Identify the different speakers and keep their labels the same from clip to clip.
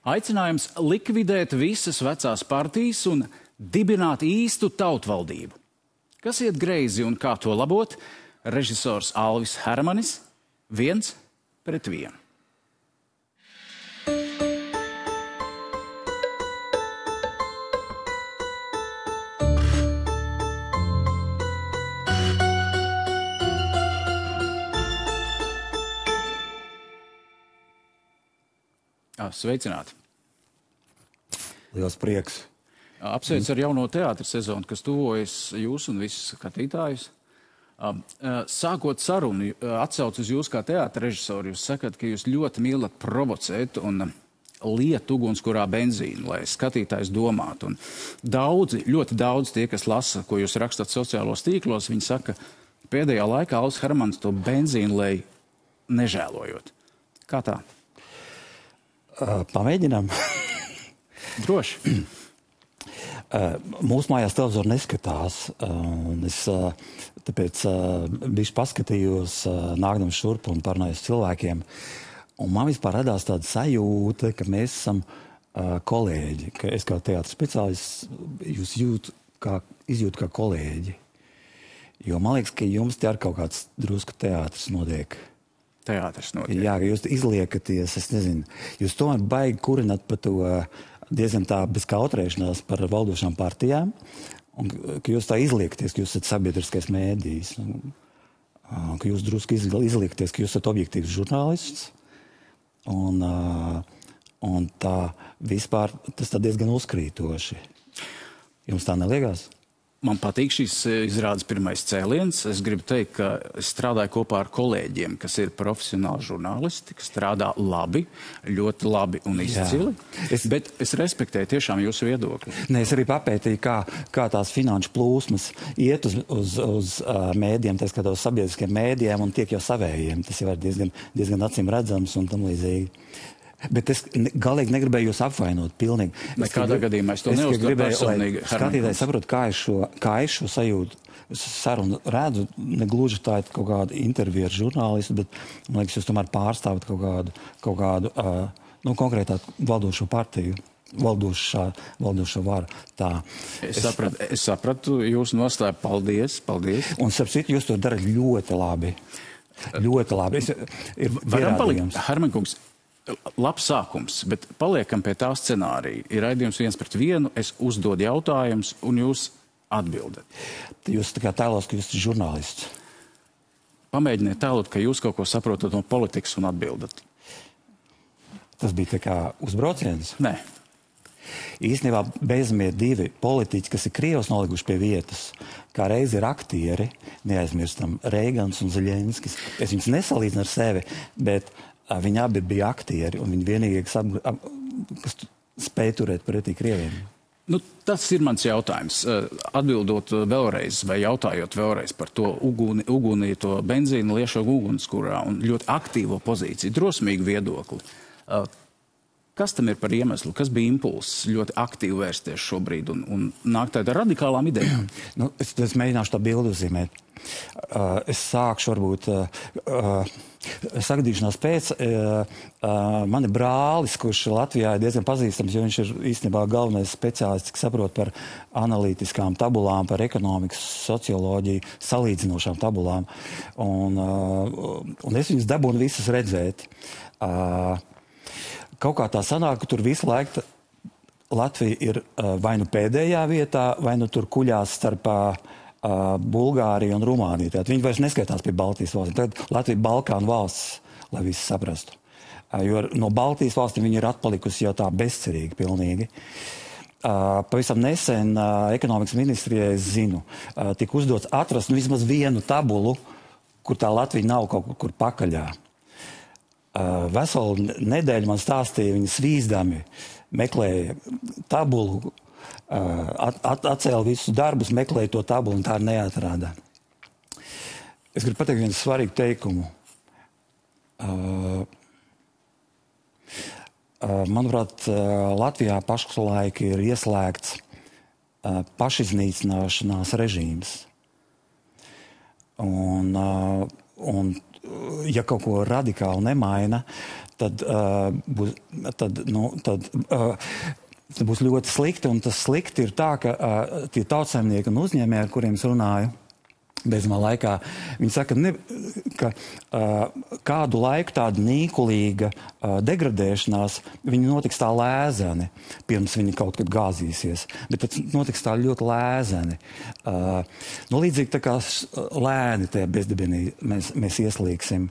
Speaker 1: Aicinājums likvidēt visas vecās partijas un dibināt īstu tautvaldību. Kas iet greizi un kā to labot? Režisors Alvis Hermanis 1-1. Sveicināti!
Speaker 2: Liels prieks!
Speaker 1: Apsveic ar jauno teātra sezonu, kas tuvojas jūs un visus skatītājus. Sākot sarunu, atsauc uz jūs kā teātra režisoru, jūs sakat, ka jūs ļoti mīlat provocēt un liet ugunskurā benzīnu, lai skatītājs domātu. Un ļoti daudz tie, kas lasa, ko jūs rakstat sociālos tīklos, viņi saka, pēdējā laikā Alvis Hermanis to benzīnu lej nežēlojot. Kā tā?
Speaker 2: Pamēģinām.
Speaker 1: Droši.
Speaker 2: Mūsu mājās televizoru neskatās. Es tāpēc bišķi paskatījos, nākdams šurp un parunājos cilvēkiem. Un man vispār radās tāda sajūta, ka mēs esam kolēģi. Ka es kā teātra speciālists jūs izjūtu kā kolēģi. Jo man liekas, ka jums te ar kaut kāds drusku teātris notiek.
Speaker 1: Teātris notiek.
Speaker 2: Jā, ka jūs izliekaties, es nezinu, jūs tomēr baigi kurināt par to diezgan tā bez kautrēšanās par valdošām partijām, un ka jūs tā izliekaties, ka jūs esat sabiedriskais mēdījis, ka jūs drusku izliekaties, ka jūs esat objektīvs žurnālists, un tā vispār tas tā diezgan uzkrītoši. Jums tā neliekās?
Speaker 1: Man patīk šīs izrādes pirmais cēliens. Es gribu teikt, ka es strādāju kopā ar kolēģiem, kas ir profesionāli žurnālisti, kas strādā labi, ļoti labi un izcili. Bet es respektēju tiešām jūsu viedokli.
Speaker 2: Nē, es arī papētīju, kā tās finanšu plūsmas iet uz mēdiem, tā skatā uz sabiedriskiem mēdiem un tiek jau savējiem. Tas jau ir diezgan acīm redzams un tam līdzīgi. Bet es galīgi negribēju jūs apvainot pilnīgi.
Speaker 1: Nekādā gadījumā es to neuzskatu personīgi.
Speaker 2: Skatītāji saprot, kā es šo sajūtu sarunu redzu, negluži tā ir kaut kāda intervija ar žurnālistu, bet man liekas, jūs tomēr pārstāvat kaut kādu konkrētā valdošo partiju. Valdošo varu. Tā.
Speaker 1: Es sapratu jūsu nostāju. Paldies.
Speaker 2: Un starp citu, jūs to darat ļoti labi. Ļoti labi.
Speaker 1: Varam palikt, Hermankungs, labs sākums, bet paliekam pie tā scenārija. Ir raidījums 1-1, es uzdodu jautājumus, un jūs atbildat.
Speaker 2: Jūs tā kā tēlos, ka jūs esat žurnālists.
Speaker 1: Pamēģiniet tēlot, ka jūs kaut ko saprotat no politikas un atbildat.
Speaker 2: Tas bija tā kā uzbrauciens?
Speaker 1: Nē.
Speaker 2: Īstenībā beidzamie divi politiķi, kas ir Krievs nolikuši pie vietas, kā reiz ir aktieri, neaizmirstam, Reigans un Zeļenskis. Es viņus nesalīdzinu ar sevi, bet viņi abi bija aktieri, un viņi vienīgie, kas spēja turēt pretī Krieviem.
Speaker 1: Tas ir mans jautājums. Atbildot vēlreiz vai jautājot vēlreiz par to uguni, to benzīnu liešo ugunskurā un ļoti aktīvo pozīciju, drosmīgu viedokli. Kas tam ir par iemeslu? Kas bija impulss ļoti aktīvi vērsties šobrīd un nākt tādā radikālām idejām?
Speaker 2: Es mēģināšu tā bildi uzzīmēt. Es sākšu varbūt sagadīšanās pēc. Man ir brālis, kurš Latvijā ir diezgan pazīstams, jo viņš ir īstenībā galvenais speciālists, kas saprot par analītiskām tabulām, par ekonomikas, socioloģiju, salīdzinošām tabulām. Un es viņus dabūnu visas redzēt. Kaut kā tā sanāk, ka tur visu laiku Latvija ir vai nu pēdējā vietā, vai nu tur kuļās starp Bulgāriju un Rumāniju. Tātad viņi vairs neskaitās pie Baltijas valstīm. Tagad Latvija Balkānu valsts, lai visi saprastu. Jo no Baltijas valstīm viņi ir atpalikusi jau tā bezcerīgi pilnīgi. Pavisam nesen ekonomikas ministrijai, es zinu, tika uzdots atrast vismaz vienu tabulu, kur tā Latvija nav kaut kur pakaļā. Veselu nedēļu man stāstīja, viņi svīzdami meklēja tabulu, atcēla visus darbus, meklēja to tabulu un tā neatrāda. Es gribu pateikt vienu svarīgu teikumu. Manuprāt, Latvijā pašlaik ir ieslēgts pašiznīcināšanās režīms. Un ja kaut ko radikāli nemaina, tad būs ļoti slikti. Un tas slikti ir tā, ka tie tautsaimnieki un uzņēmēji, ar kuriem es runāju, beidzamā laikā, viņi saka, ka kādu laiku tāda nīkulīga degradēšanās, viņi notiks tā lēzeni, pirms viņi kaut kad gāzīsies. Bet tas notiks tā ļoti lēzeni. Līdzīgi tā kā lēni tajā bezdibinī mēs ieslīgsim.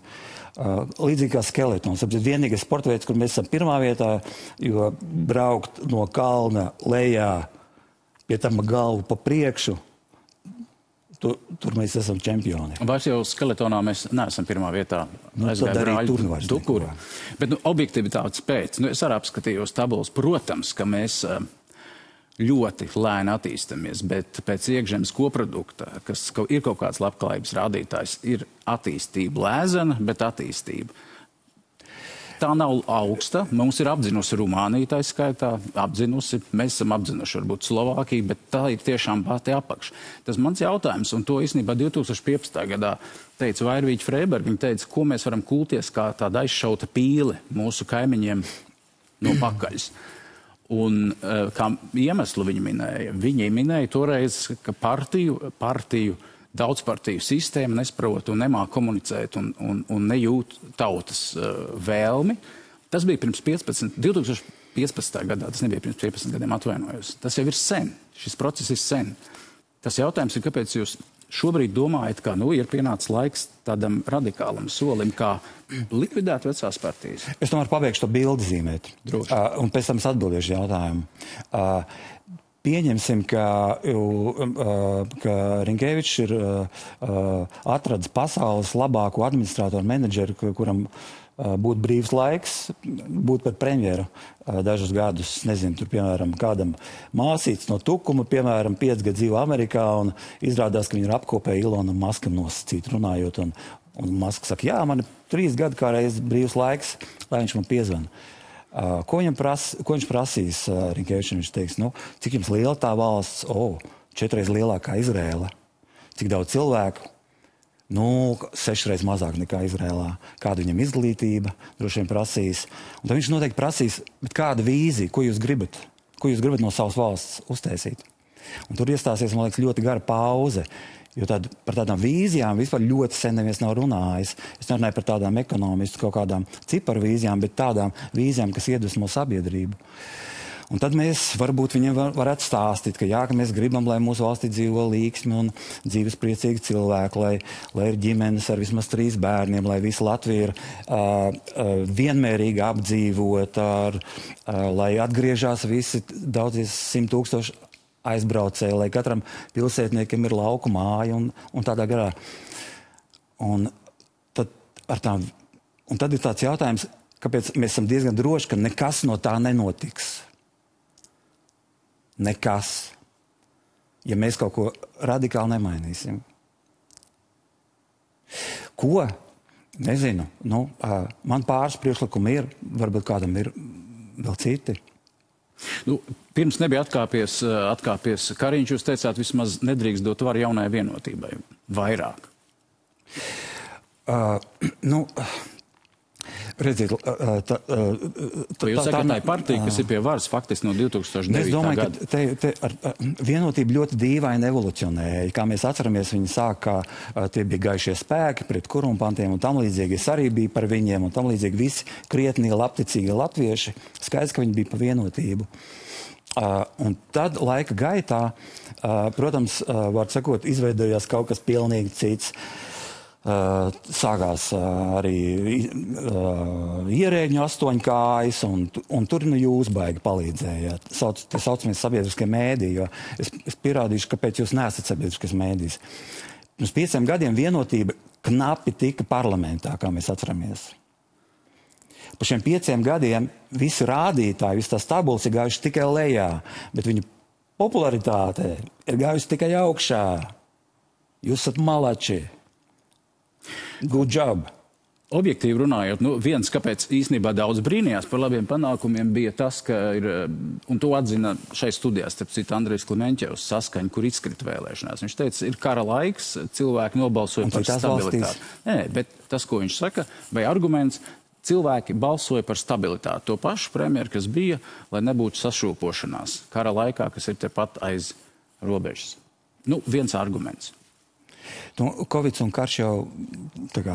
Speaker 2: Līdzīgi kā skeletons. Vienīgais sporta veids, kur mēs esam pirmā vietā, jo braukt no kalna lejā, pie tam galvu pa priekšu, tur mēs esam čempioni.
Speaker 1: Vairs jau skeletonā mēs neesam pirmā vietā.
Speaker 2: Tad arī tur vairs
Speaker 1: Dukuri. Bet objektivitātes pēc, es arī apskatījos tabulas, protams, ka mēs ļoti lēni attīstamies, bet pēc iekšzemes koprodukta, kas ir kaut kāds labklājības rādītājs, ir attīstība lēzena, bet attīstība. Tā nav augsta. Mums ir apzinusi Rumānija, tā skaitā, mēs esam apzinuši varbūt Slovākiju, bet tā ir tiešām pati apakš. Tas mans jautājums, un to īstenībā 2015. gadā teica Vairvīķa Freiberga, viņa teica, ko mēs varam kulties kā tāda aizšauta pīle mūsu kaimiņiem no pakaļas. Un kā iemeslu viņi minēja toreiz, ka partiju daudzpartiju sistēma nesprot un nemāk komunicēt un nejūt tautas vēlmi. Tas bija pirms 2015. gadā, tas nebija pirms 15 gadiem, atvainojos. Tas jau ir sen, šis process ir sen. Tas jautājums ir, kāpēc jūs šobrīd domājat, ka ir pienācis laiks tādam radikālam solim, kā likvidēt vecās partijas?
Speaker 2: Es tomēr pabeigšu to bildi zīmēt.
Speaker 1: Droši.
Speaker 2: Un pēc tam es atbildēšu jautājumu. Pieņemsim, ka Rinkevičs ir atradis pasaules labāko administratoru menedžeru, kuram būtu brīvs laiks, būt par premjeru dažus gadus. Nezinu, tur, piemēram, kādam māsīts no Tukuma, piemēram, 5 gadu dzīvo Amerikā, un izrādās, ka viņi ir apkopēji Ilonam Maskam nosacīt runājot. Un Masks saka, jā, man ir 3 gadi kā reiz brīvs laiks, lai viņš man piezvana. Ko viņš prasīs Rinkevičam? Viņš teiks, cik jums liela tā valsts? 4 reizes lielākā Izrēla. Cik daudz cilvēku? 6 reizes mazāk nekā Izrēlā. Kāda viņam izglītība? Droši vien prasīs. Un tad viņš noteikti prasīs, bet kāda vīzija? Ko jūs gribat? Ko jūs gribat no savas valsts uztaisīt? Un tur iestāsies, man liekas, ļoti gara pauze. Jo par tādām vīzijām vispār ļoti sen neviens nav runājis. Es nerunāju par tādām ekonomistu kaut kādām ciparu vīzijām, bet tādām vīzijām, kas iedvesmo sabiedrību. Un tad mēs varbūt viņiem varētu stāstīt, ka mēs gribam, lai mūsu valstī dzīvo līksmi un dzīves priecīgi cilvēki, lai ir ģimenes ar vismaz 3 bērniem, lai visa Latvija ir vienmērīgi apdzīvota, lai atgriežās visi daudzies 100 000 aizbraucēji, lai katram pilsētniekam ir lauku māja un tādā garā. Un tad ir tāds jautājums, kāpēc mēs esam diezgan droši, ka nekas no tā nenotiks. Nekas. Ja mēs kaut ko radikāli nemainīsim. Ko? Nezinu. Man pāris priekšlikumi ir, varbūt kādam ir vēl citi.
Speaker 1: Pirms nebija atkāpies Kariņš, jūs teicāt, vismaz nedrīkst dot varu jaunai vienotībai. Vairāk.
Speaker 2: Redziet,
Speaker 1: jūs sakat, tā ir partija, kas ir pie varas faktiski no 2009. gada.
Speaker 2: Es domāju, ka vienotība ļoti dīvaini evolucionēja. Kā mēs atceramies, viņi sāk, kā tie bija gaišie spēki pret korumpantiem un tam līdzīgi. Es arī biju par viņiem un tam līdzīgi visi krietnie, labticīgi latvieši. Skaidrs, ka viņi bija par vienotību. Un tad laika gaitā, protams, var sakot, izveidojās kaut kas pilnīgi cits. Sākās arī ierēģņu 8 kājas, un tur jūs baigi palīdzējāt. Tie saucamies sabiedriskie mēdī, jo es pierādīšu, kāpēc jūs neesat sabiedriskais mēdījis. Pirms 5 gadiem vienotība knapi tika parlamentā, kā mēs atceramies. Pa šiem 5 gadiem visi rādītāji, visas tās tabulas ir gājuši tikai lejā, bet viņu popularitāte ir gājusi tikai augšā. Jūs esat malači. Good job.
Speaker 1: Objektīvi runājot, viens, kāpēc īstenībā daudz brīnījās par labiem panākumiem, bija tas, ka ir, un to atzina šai studijā, starp citu, Andrejs Klimenķevs Saskaņa, kur izkrita vēlēšanās. Viņš teica, ir kara laiks, cilvēki nobalsoja par stabilitāti. Nē, bet tas, ko viņš saka, vai arguments, Cilvēki balsoja par stabilitāti. To pašu premjeru, kas bija, lai nebūtu sašūpošanās kara laikā, kas ir tepat aiz robežas. Nu, viens arguments.
Speaker 2: Covid un karš jau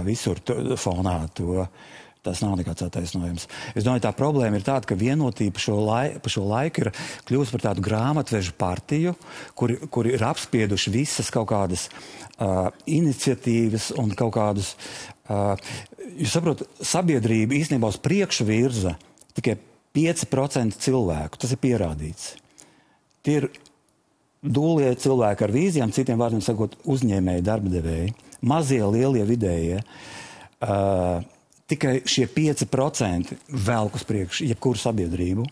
Speaker 2: visur fonā tas nav nekāds attaisnojums. Es domāju, tā problēma ir tāda, ka vienotība pa šo laiku ir kļūst par tādu grāmatvežu partiju, kuri ir apspieduši visas kaut kādas iniciatīvas un kaut kādus... Jūs saprotat, sabiedrība īstenībā uz priekšu virza tikai 5% cilvēku. Tas ir pierādīts. Tie ir dūlie cilvēki ar vīzijām, citiem vārdiem sakot, uzņēmēji, darbadevēji, mazie, lielie, vidējie. Tikai šie 5% velk uz priekšu jebkuru sabiedrību.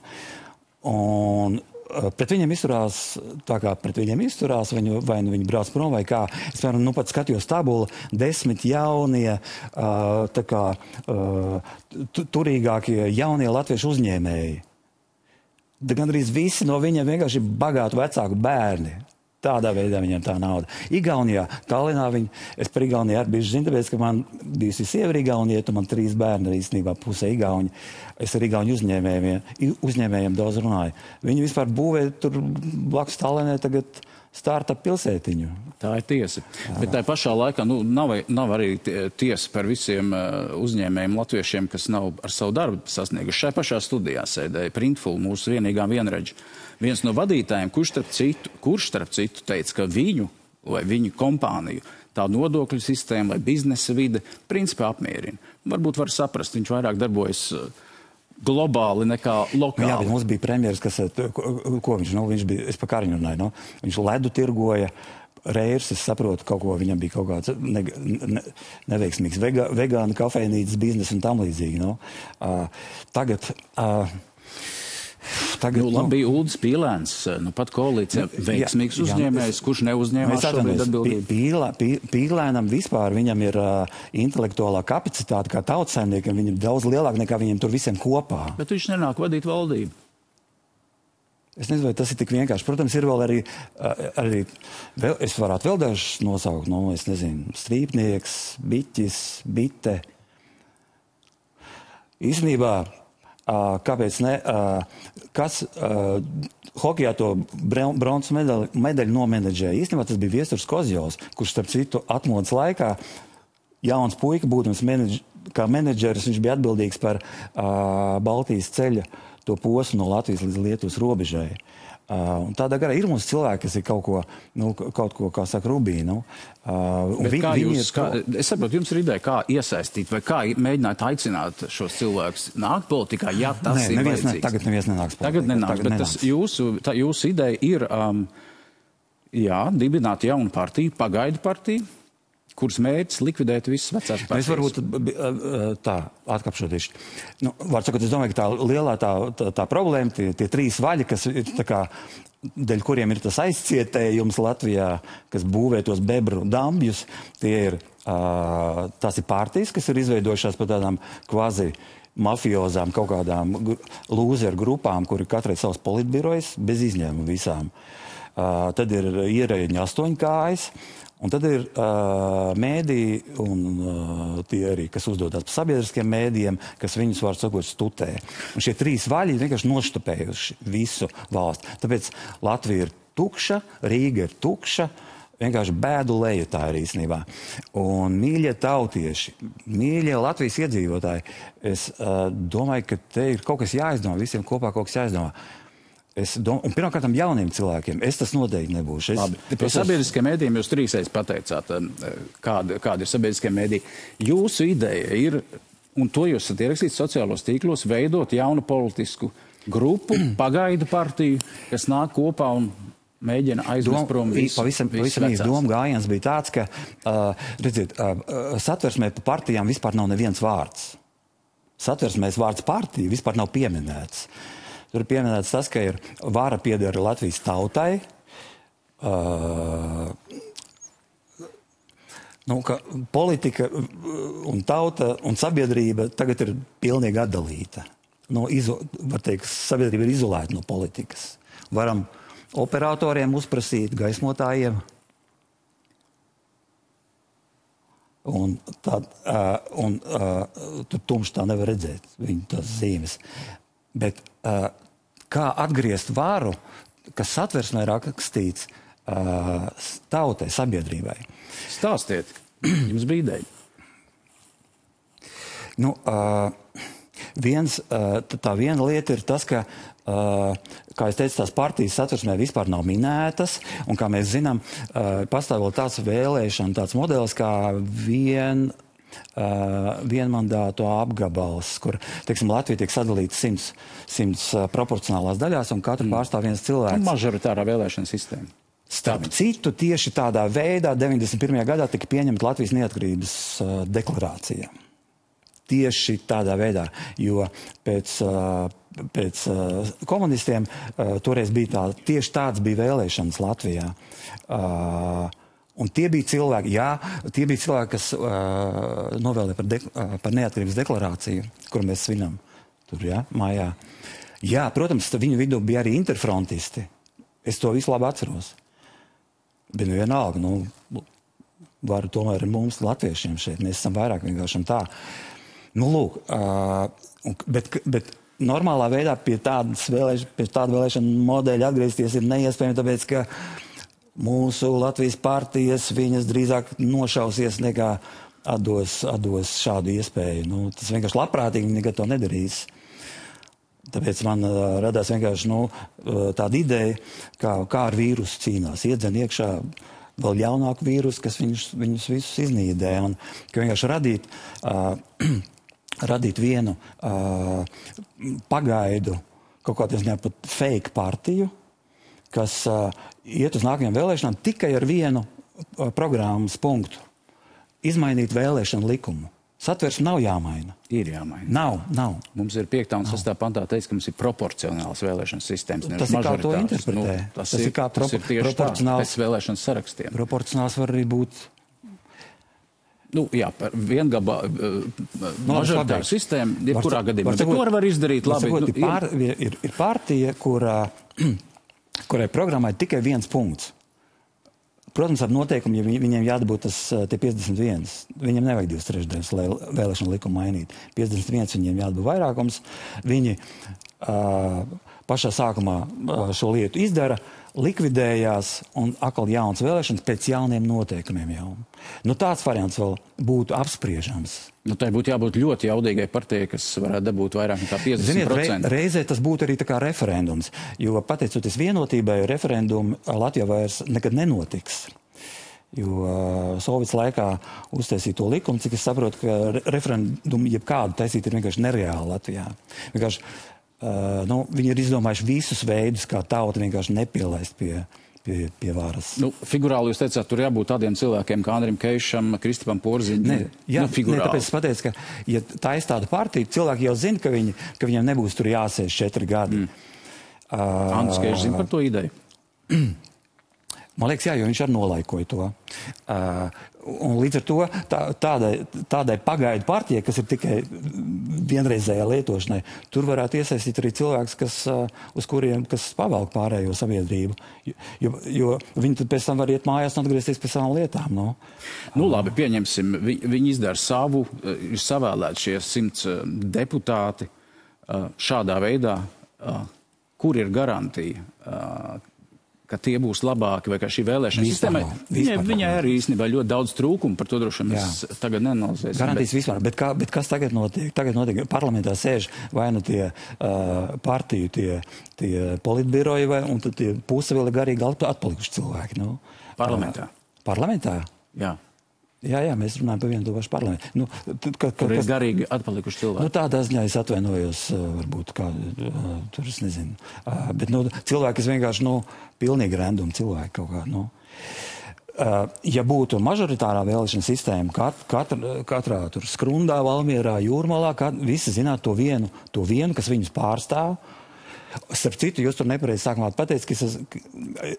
Speaker 2: Un pret viņiem izturās tā, kā pret viņiem izturās, vai viņi brauc prom vai kā. Es, piemēram, pat skatījos tabulu, 10 jaunie, turīgākie jaunie latviešu uzņēmēji. Gandrīz visi no viņiem vienkārši ir bagātu vecāku bērni. Tādā veidā viņiem tā nauda. Igaunijā, Tallinā es par Igauniju arī biju zinu, tāpēc, ka man bijusi sieva Igaunija, man 3 bērni, īstenībā pusē Igauņi. Es ar Igauņu uzņēmējiem daudz runāju. Viņi vispār būvē tur blakus Tallinai tagad startup pilsētiņu.
Speaker 1: Tā ir tiesa. Bet tā pašā laikā nav arī tiesa par visiem uzņēmējiem latviešiem, kas nav ar savu darbu sasnieguši. Šai pašā studijā sēdēja Printful, mūsu vienīgā vienredža. Viens no vadītājiem, kurš starp citu teica, ka viņu kompāniju tā nodokļu sistēma vai biznesa vide principā apmierina. Varbūt var saprast, viņš vairāk darbojas globāli nekā lokāli.
Speaker 2: Jā, bet mums bija premjeras, ko viņš bija, es pa Kariņu runāju, viņš ledu tirgoja, Reirs, es saprotu, kaut ko viņam bija kaut kāds neveiksmīgs vegānu kafejnīcas biznesa un tam līdzīgi. Tagad
Speaker 1: bija Uldis Pīlēns, pat koalīcijā veiksmīgs uzņēmējs, kurš neuzņēmās šobrīd atbildību.
Speaker 2: Pīlēnam vispār viņam ir intelektuālā kapacitāte kā tautsaimniekam, viņam ir daudz lielāka nekā viņiem tur visiem kopā.
Speaker 1: Bet viņš nenāk vadīt valdību.
Speaker 2: Es nezinu, vai tas ir tik vienkārši. Protams, ir vēl arī es varētu vēl dažus nosaukt, es nezinu, strīpnieks, biķis, bite. Īstenībā, kāpēc ne, hokejā to bronzas medaļu nomenedžēja. Īstenībā tas bija Viesturs Kozjovs, kurš starp citu atmodas laikā jauns puika, būtams kā menedžeris, viņš bija atbildīgs par Baltijas ceļa to posmu no Latvijas līdz Lietuvas robežai. Un tādā garā ir mums cilvēki, kas ir kaut ko, kā saka, rubī.
Speaker 1: Es saprotu, jums ir ideja, kā iesaistīt vai kā mēģināt aicināt šos cilvēkus nākt politikā, ja tas ir vajadzīgs.
Speaker 2: Tagad neviens nenāks politikā.
Speaker 1: Tagad nenāks, bet jūsu ideja ir, dibināt jaunu partiju, pagaidu partiju, kuras mērķis likvidēt visas vecās partijas.
Speaker 2: Es varbūt tā atkapšoties. Var sakot, es domāju, ka tā lielā tā problēma, tie 3 vaļi, kas ir tā kā, dēļ kuriem ir tas aizcietējums Latvijā, kas būvē tos bebru dambjus, tās ir partijas, kas ir izveidojušās par tādām kvazi mafiozām, kaut kādām lūzeru grupām, kuri katrai savs politbirojas, bez izņēmuma visām. Tad ir ierēģi 8 kājas. Un tad ir mēdī un tie arī, kas uzdodas par sabiedriskiem mēdījiem, kas viņus, var sakot, stutē. Un šie 3 vaļi vienkārši noštupējuši visu valsti. Tāpēc Latvija ir tukša, Rīga ir tukša, vienkārši bēdu leju tā ir īstenībā. Un mīļie tautieši, mīļie Latvijas iedzīvotāji, es domāju, ka te ir kaut kas jāizdomā, visiem kopā kaut kas jāizdomā. Un pirmkārt jauniem cilvēkiem. Es tas noteikti nebūšu.
Speaker 1: Par sabiedriskiem mēdījiem jūs 3 pateicāt, kāda ir sabiedriskie mēdīji. Jūsu ideja ir, un to jūs esat ierakstījis sociālos tīklos, veidot jaunu politisku grupu, pagaidu partiju, kas nāk kopā un mēģina aizvest prom visu vecās.
Speaker 2: Doma gājiens bija tāds, ka, redziet, satversmē par partijām vispār nav neviens vārds. Satversmēs vārds partija vispār nav pieminēts. Tur ir pieminēts tas, ka ir vara pieder Latvijas tautai, ka politika un tauta un sabiedrība tagad ir pilnīgi atdalīta. Var teikt, sabiedrība ir izolēta no politikas. Varam operatoriem uzprasīt, gaismotājiem. Un tur tumši tā nevar redzēt, viņu tās zīmes. Bet kā atgriezt varu, kas satversmē rakstīts tautai, sabiedrībai?
Speaker 1: Stāstiet, jums bija ideja.
Speaker 2: Nu, tā viena lieta ir tas, ka, kā es teicu, tās partijas satversmē vispār nav minētas, un kā mēs zinām, pastāv vēl tāds vēlēšana, tāds modelis kā vienmandātu apgabals, kur, teiksim, Latvija tiek sadalīta 100 proporcionālās daļās, un katru pārstāv viens cilvēks.
Speaker 1: Mažoritārā vēlēšana sistēma.
Speaker 2: Starp citu, tieši tādā veidā 91. gadā tika pieņemta Latvijas neatkarības deklarācija. Tieši tādā veidā, jo pēc komunistiem toreiz bija tieši tāds bija vēlēšanas Latvijā. Un tie bija cilvēki, kas novēlēja par neatkarības deklarāciju, kuru mēs svinam tur, mājā. Jā, protams, viņu vidū bija arī interfrontisti. Es to visu labi atceros. Bet vienalga, varu tomēr ar mums latviešiem šeit. Mēs esam vairāk vienkārši tā. Lūk, bet normālā veidā pie tāda vēlēšana modeļa atgriezties ir neiespējami, tāpēc, ka mūsu Latvijas partijas viņas drīzāk nošausies nekā atdos šādu iespēju. Tas vienkārši labprātīgi nekad to nedarīs. Tāpēc man radās vienkārši tāda ideja, kā ar vīrusu cīnās. Iedzen iekšā vēl ļaunāku vīrusu, kas viņus visus iznīdē. Un ka vienkārši radīt vienu pagaidu, kaut kādā ziņā pat fake partiju, kas iet uz nākamajām vēlēšanām tikai ar vienu programmas punktu. Izmainīt vēlēšanu likumu. Satversme nav jāmaina.
Speaker 1: Ir jāmaina.
Speaker 2: Nav.
Speaker 1: Mums ir 5. un 6. pantā teiks, ka mums ir proporcionāls vēlēšanas sistēmas.
Speaker 2: Tas ir kā to interpretē.
Speaker 1: Tas ir tieši tā, pēc vēlēšanas sarakstiem.
Speaker 2: Proporcionāls var arī būt...
Speaker 1: par mažoritāru sistēmu, jebkurā gadījumā. Bet ko var izdarīt labi?
Speaker 2: Ir partija, kurai programmai tikai viens punkts. Protams, ar noteikumu, ja viņiem jādabūt tie 51. Viņiem nevajag 2/3, lai vēlēšanu likumu mainīt. 51 viņiem jādabūt vairākums. Viņi pašā sākumā šo lietu izdara, likvidējās un atkal jauns vēlēšanas pēc jauniem noteikumiem jau. Tāds variants vēl būtu apspriežams.
Speaker 1: Tai būtu jābūt ļoti jaudīgai partijai, kas varētu dabūt vairāk nekā 50%.
Speaker 2: Ziniet, reizē tas būtu arī tā kā referendums, jo pateicoties vienotībai, referendumi Latvijā vairs nekad nenotiks. Jo Sovietas laikā uztaisīja to likumu, cik es saprotu, ka referendumu jebkādu taisīt ir vienkārši nereāli Latvijā. Vienkārši, viņi ir izdomājuši visus veidus, kā tauta vienkārši nepielaist pie varas.
Speaker 1: Figurāli jūs teicāt, tur jābūt tādiem cilvēkiem kā Andrim Keišam, Kristipam Porziņam.
Speaker 2: Tāpēc es pateicu, ka, ja taisa tādu partiju, cilvēki jau zina, ka viņiem nebūs tur jāsēž 4 gadi.
Speaker 1: Andris Keišs zina par to ideju?
Speaker 2: Man liekas, jo viņš arī nolaikoja to. Un līdz ar to tādai pagaidu partijai, kas ir tikai vienreizējā lietošanai, tur varētu iesaistīt arī cilvēks, kas pavelk pārējo sabiedrību. Jo viņi tad pēc tam var iet mājās un atgriezties pie savām lietām.
Speaker 1: Labi, pieņemsim, viņi izdara savu, ir savēlēti šie 100 deputāti šādā veidā. Kur ir garantija, ka tie būs labāki, vai kā šī vēlēšana sistēma? Viņai arī īstenībā ļoti daudz trūkumu, par to droši mēs tagad nenalizēsim.
Speaker 2: Garantijas vispār, bet kas tagad notiek? Tagad notiek, parlamentā sēž vai tie partiju, tie politbiroji, un tad tie puse vēl ir garīgi atpalikuši cilvēki.
Speaker 1: Parlamentā?
Speaker 2: Parlamentā?
Speaker 1: Jā.
Speaker 2: Jā, mēs runājam par vienu to pašu parlamentu.
Speaker 1: Tur ir garīgi atpalikuši cilvēki.
Speaker 2: Tādā ziņā es atvainojos, varbūt tur es nezinu. Bet cilvēki, kas vienkārši, pilnīgi random cilvēki kaut kā, ja būtu mažoritārā vēlēšana sistēma, katrā tur Skrundā, Valmierā, Jūrmalā, visi zinātu to vienu, kas viņus pārstāv. Starp citu, jūs tur nepareizi sākumā pateicat,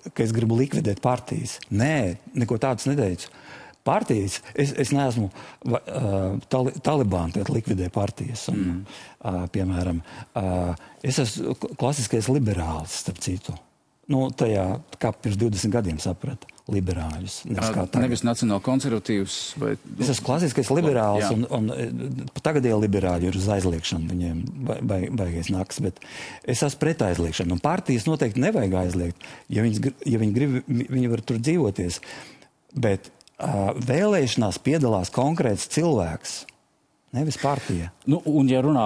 Speaker 2: ka es gribu likvidēt partijas. Nē, neko tādus neteicu. Partijas, es neesmu Talibāni, kad likvidē partijas. Un, piemēram, es esmu klasiskais liberālis, starp citu. Tajā, kā pirms 20 gadiem saprata. liberāļus.
Speaker 1: Nevis nacionāli konservatīvs. Vai...
Speaker 2: Es esmu klasiskais liberāls, un tagadie liberāļi ir uz aizliekšanu, viņiem baigais naks, bet es esmu pret aizliekšanu. Un partijas noteikti nevajag aizliegt, ja viņi grib, viņi var tur dzīvoties. Bet vēlēšanās piedalās konkrēts cilvēks, nevis partija.
Speaker 1: Nu, un ja runā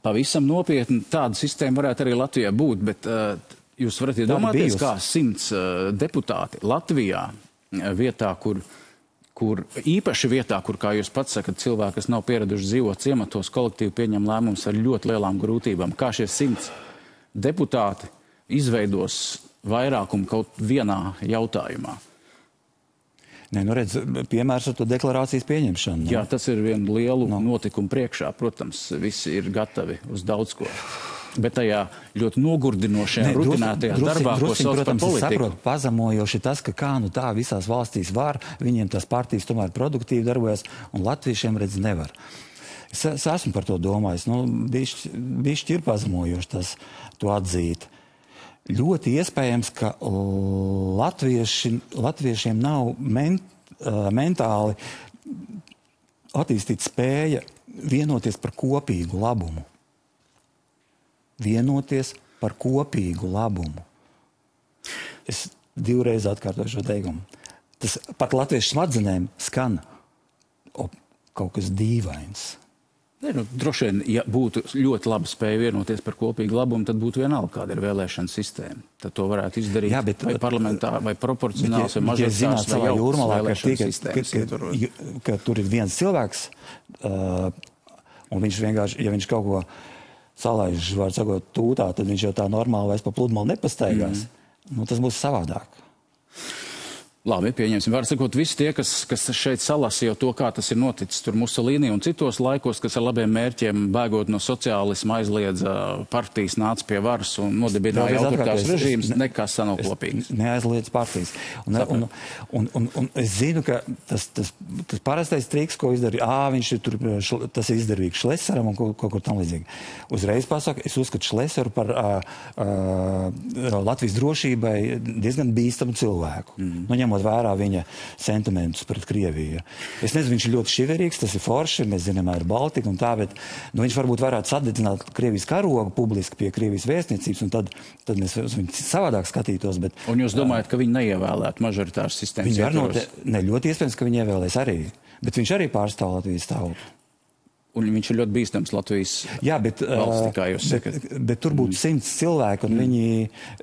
Speaker 1: pavisam nopietni, tāda sistēma varētu arī Latvijā būt, bet jūs varat iedomāties, kā 100 deputāti Latvijā vietā, kur īpaši vietā, kur, kā jūs pats sakat, cilvēki, kas nav pieraduši dzīvot ciematos, kolektīvi pieņem lēmumus ar ļoti lielām grūtībām. Kā šie 100 deputāti izveidos vairākumu kaut vienā jautājumā?
Speaker 2: Nē, nu redz, piemērs ar to deklarācijas pieņemšanu.
Speaker 1: Jā, tas ir vienu lielu notikumu priekšā. Protams, visi ir gatavi uz daudz ko. Bet tajā ļoti nogurdinošajā, rutinētajā darbā, ko sauc par politiku.
Speaker 2: Es saprotu, pazemojoši tas, ka kā nu tā visās valstīs var, viņiem tās partijas tomēr produktīvi darbojas, un latviešiem redz nevar. Es esmu par to domājis. Nu, bišķi ir pazemojoši tas to atzīt. Ļoti iespējams, ka latviešiem nav mentāli attīstīt spēja vienoties par kopīgu labumu. Vienoties par kopīgu labumu. Es divreiz atkārtoju šo teikumu. Tas pat latviešu smadzenēm skan kaut kas dīvains.
Speaker 1: Nu, droši vien, ja būtu ļoti laba spēja vienoties par kopīgu labumu, tad būtu vienalga, kāda ir vēlēšana sistēma. Tad to varētu izdarīt vai parlamentāri, vai proporcionāls, vai mažoritārs, vai jaunas vēlēšana sistēmas.
Speaker 2: Ka tur ir viens cilvēks, un viņš vienkārši, ja viņš kaut ko salaiž, var sakot, tūtā, tad viņš jau tā normāli vairs pa pludmali nepastaigās. Nu, tas būs savādāk.
Speaker 1: Labi, pieņemsim. Var sakot, visi tie, kas šeit salasīja to, kā tas ir noticis tur Musolīni un citos laikos, kas ar labiem mērķiem, bēgot no sociālisma, aizliedza partijas, nāca pie varas un nodibināja autoritārs režīms, nekas nav kopīgs.
Speaker 2: Neaizliedz partijas. Un es zinu, ka tas parastais triks, ko izdarīja, viņš ir tur, tas ir izdarīgs Šlesaram un kaut kur tam līdzīgi. Uzreiz pasaka, es uzskatu Šlesaru par Latvijas drošībai diezgan bīstamu cilvēku. Nu, vērā viņa sentimentus pret Krieviju. Es nezinu, viņš ir ļoti šiverīgs, tas ir forši, mēs zinām, ir Baltika un tā, bet viņš varbūt varētu sadedzināt Krievijas karogu publiski pie Krievijas vēstniecības, un tad mēs uz viņu savādāk skatītos. Bet,
Speaker 1: un jūs domājat, ka viņi neievēlētu mažoritāras sistēmas ietvaros?
Speaker 2: Ne, ļoti iespējams, ka viņi ievēlēs arī, bet viņš arī pārstāv Latvijas tautu.
Speaker 1: Un viņš ir ļoti bīstams Latvijas valstī, kā jūs sakat.
Speaker 2: Bet tur būtu 100 cilvēki, un viņi,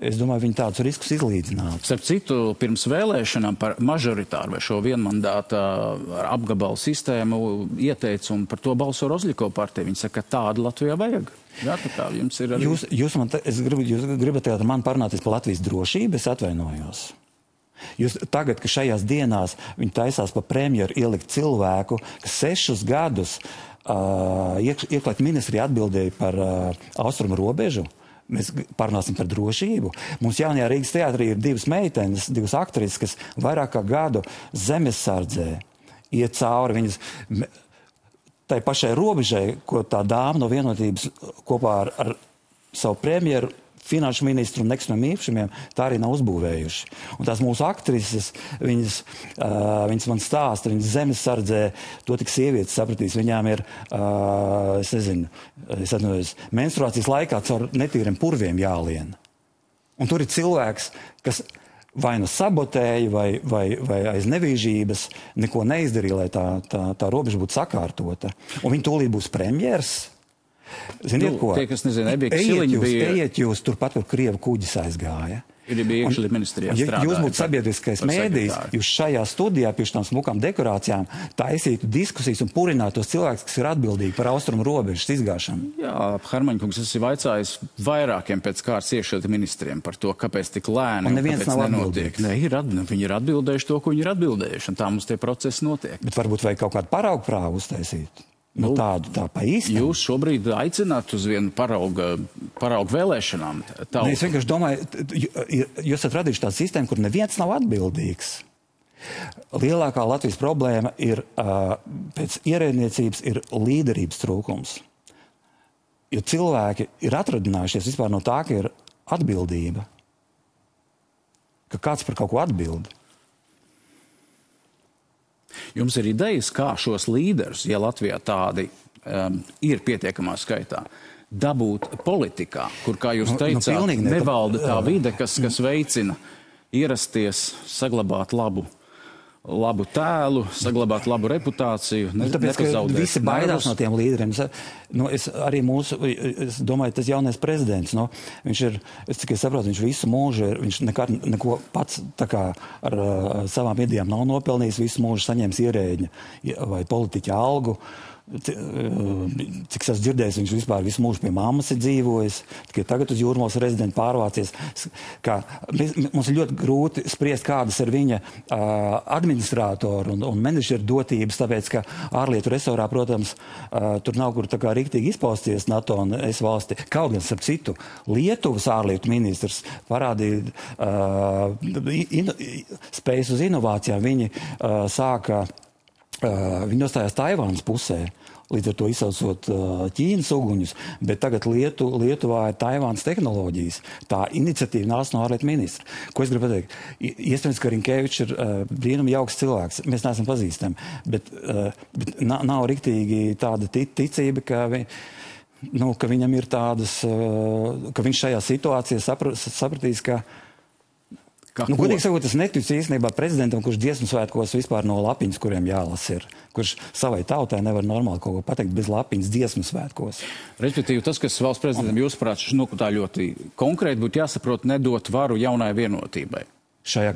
Speaker 2: es domāju, viņi tādus riskus izlīdzinātu.
Speaker 1: Starp citu, pirms vēlēšanām par mažoritāru vai šo vienmandāta apgabalu sistēmu ieteica, un par to balso Rozļikova partija. Viņi saka, ka tādu Latvijā vajag. Jā, tā kā jums ir arī...
Speaker 2: Jūs gribat tagad man parunāties par Latvijas drošību, es atvainojos. Jūs tagad, ka šajās dienās viņi taisās pa premjeru ielikt cilvēku, kas 6 gadus iekšlietu ministrija atbildēja par austrumu robežu. Mēs parunāsim par drošību. Mums jaunajā Rīgas teātrī ir 2 meitenes, 2 aktrises, kas vairāk kā gadu zemesardzē iet cauri viņas tai pašai robežai, ko tā dāma no Vienotības kopā ar savu premjeru, finanšu ministru un nekustamiem īpašumiem, tā arī nav uzbūvējuši. Un tās mūsu aktrises, viņas man stāsta, viņas zemesardzē, to tik sievietes sapratīs, viņām ir, es nezinu, menstruācijas laikā caur netīriem purviem jālien. Un tur ir cilvēks, kas vai nu sabotēja, vai aiz nevīžības neko neizdarīja, lai tā robeža būtu sakārtota. Un viņi tūlīt būs premjers. Ziniet, ko?
Speaker 1: Tie, kas nezina, Ebika Siliņa bija...
Speaker 2: Ejiet jūs turpat, kur Krievu kuģis aizgāja.
Speaker 1: Ir bija iekšļietu ministrijā strādāja.
Speaker 2: Jūs būtu sabiedriskais mēdījis, jūs šajā studijā pie šitām smukām dekorācijām taisītu diskusijas un purinātu tos cilvēkus, kas ir atbildīgi par austrumu robežas izgāšanu.
Speaker 1: Jā, Hermaņkungs, es esmu vaicājis vairākiem pēc kārtas iekšļietu ministriem par to, kāpēc tik lēni un kāpēc nenotiek. Ne, viņi ir atbildējuši to, ko viņi ir atbildējuši, un tā mums tie procesi notiek.
Speaker 2: Bet varbūt vajag kaut kādu paraugu prāvu uztaisīt. Nu, tādu tā pa īstam.
Speaker 1: Jūs šobrīd aicināt uz vienu paraugu vēlēšanām?
Speaker 2: Ne, es vienkārši domāju, jūs esat radījuši tādu sistēmu, kur neviens nav atbildīgs. Lielākā Latvijas problēma ir, pēc ierēdniecības, ir līderības trūkums. Jo cilvēki ir atradinājušies vispār no tā, ka ir atbildība. Ka kāds par kaut ko atbild.
Speaker 1: Jums ir idejas, kā šos līderus, ja Latvijā tādi ir pietiekamā skaitā, dabūt politikā, kur, kā jūs teicāt, nevalda tā vide, kas veicina ierasties, saglabāt labu tēlu, saglabāt labu reputāciju,
Speaker 2: tāpēc, ka visi baidās no tiem līderiem. Es domāju, tas jaunais prezidents, viņš ir, cik es saprotu, viņš visu mūžu, viņš neko pats tā kā ar savām idejām nav nopelnījis, visu mūžu saņēmis ierēģņa vai politiķa algu. Cik es dzirdējis, viņš vispār visu mūžu pie mammas ir dzīvojis, tikai tagad uz Jūrmalas rezidentu pārvācies. Mums ir ļoti grūti spriest, kādas ir viņa administrātoru un menedžeru dotības, tāpēc, ka ārlietu resorā, protams, tur nav kur tā kā riktīgi izpausties NATO un es valsti. Kaut gan, starp citu, Lietuvas ārlietu ministrs parādīja spējas uz inovācijām. Viņi viņi nostājās Taivānas pusē, līdz ar to izsaucot Ķīnas uguņus, bet tagad Lietuvā ir Taivānas tehnoloģijas. Tā iniciatīva nāca no ārlietu ministra. Ko es gribu pateikt? Iespējams, ka Rinkevičs ir brīnumi jauks cilvēks. Mēs neesam pazīstami, bet nav riktīgi tāda ticība, ka viņam ir tādas, ka viņš šajā situācijā sapratīs, ka godīgi sakot, es neticu īstenībā prezidentam, kurš dziesmu svētkos vispār no lapiņas, kuriem jālas ir. Kurš savai tautai nevar normāli kaut ko pateikt bez lapiņas dziesmu svētkos.
Speaker 1: Respektīvi, tas, kas valsts prezidentam jūsuprāt, tā ļoti konkrēti būtu jāsaprot, nedot varu jaunai vienotībai.
Speaker 2: Šajā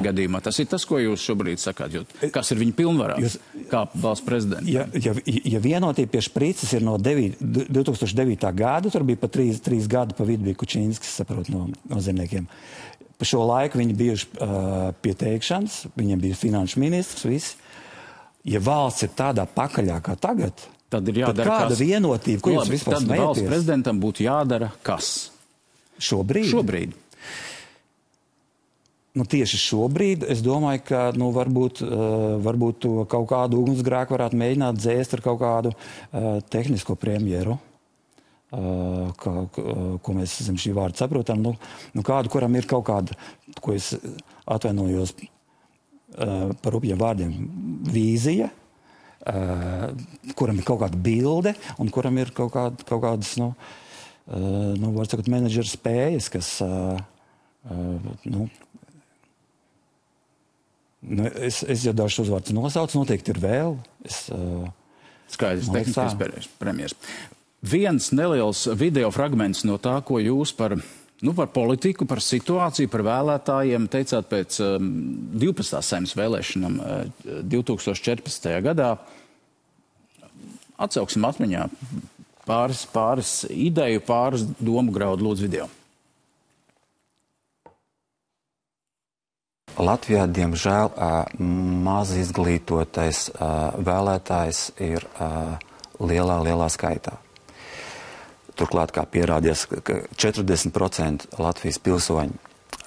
Speaker 1: gadījumā. Tas ir tas, ko jūs šobrīd sakāt, kas ir viņa pilnvarās, kā valsts prezidenta.
Speaker 2: Ja vienotība pie Šprīces ir no 2009. gada, tur bija pa 3 gadu pa vidu bija Kučīnskis, saprot, no zemniekiem. Pa šo laiku viņi bijuši pie teikšanas, viņiem bija finanšu ministrs, visi. Ja valsts ir tādā pakaļā kā tagad,
Speaker 1: tad ir jādara
Speaker 2: kāda vienotība, ko jūs vispār smējaties?
Speaker 1: Tad valsts prezidentam būtu jādara kas? Šobrīd.
Speaker 2: Tieši šobrīd es domāju, ka varbūt to kaut kādu ugunsgrēku varētu mēģināt dzēst ar kaut kādu tehnisko premjeru. Ko mēs zem šī vārda saprotam, kādu, kuram ir kaut kāda, ko es atvainojos par rupjiem vārdiem, vīzija, kuram ir kaut kāda bilde un kuram ir kaut kādas, var sakot, menedžera spējas, kas, es jau dažus uzvārdus nosaucu, noteikti ir vēl.
Speaker 1: Skaidrs, tehniskais premjers. Viens neliels video fragments no tā, ko jūs par politiku, par situāciju, par vēlētājiem teicāt pēc 12. Saeimas vēlēšanām 2014. gadā. Atsauksim atmiņā pāris ideju, pāris domu graudu, lūdzu video.
Speaker 3: Latvijā, diemžēl, maz izglītotais vēlētājs ir lielā skaitā. Turklāt, kā pierādījās, ka 40% Latvijas pilsoņi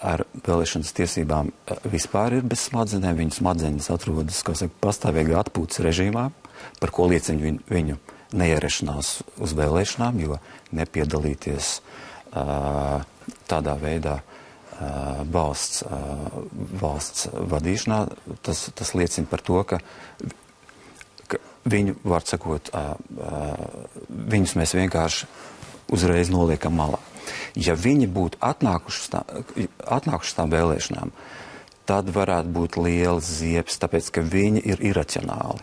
Speaker 3: ar vēlēšanas tiesībām vispār ir bez smadzenēm. Viņu smadzenes atrodas, pastāvīgā atpūtas režīmā, par ko liecina viņu neierašanās uz vēlēšanām, jo nepiedalīties tādā veidā valsts vadīšanā, tas liecina par to, ka viņu, var sakot, viņus mēs vienkārši uzreiz noliekam malā. Ja viņi būtu atnākuši tām vēlēšanām, tad varētu būt liels ziepes, tāpēc, ka viņi ir iracionāli.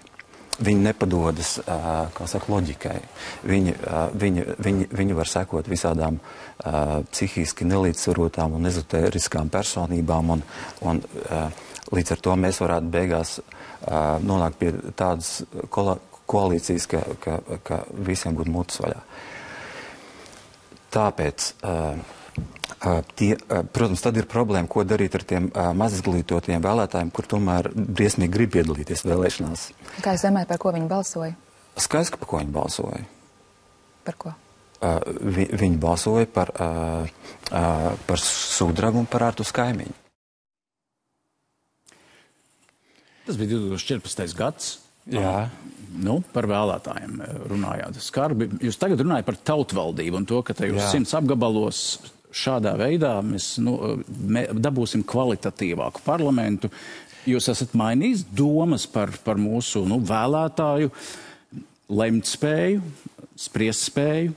Speaker 3: Viņi nepadodas, loģikai. Viņi var sekot visādām psihiski nelīdzsvarotām un ezotēriskām personībām, un līdz ar to mēs varētu beigās nonākt pie tādas koalīcijas, ka visiem būtu mutes vaļā. Tāpēc, protams, tad ir problēma, ko darīt ar tiem mazizglītotiem vēlētājiem, kur tomēr briesmīgi grib piedalīties vēlēšanās.
Speaker 4: Kā jūs domājat, par ko viņi balsoja?
Speaker 3: Skaidrs, par ko viņi balsoja.
Speaker 4: Par ko?
Speaker 3: Viņi balsoja par Sudrabu un par Artus Kaimiņu.
Speaker 1: Tas bija 2014. gads.
Speaker 2: Jā.
Speaker 1: Par vēlētājiem runājāt skarbi. Jūs tagad runājat par tautvaldību un to, ka tajos 100 apgabalos šādā veidā mēs dabūsim kvalitatīvāku parlamentu. Jūs esat mainījis domas par mūsu vēlētāju lemt spēju, spriest spēju?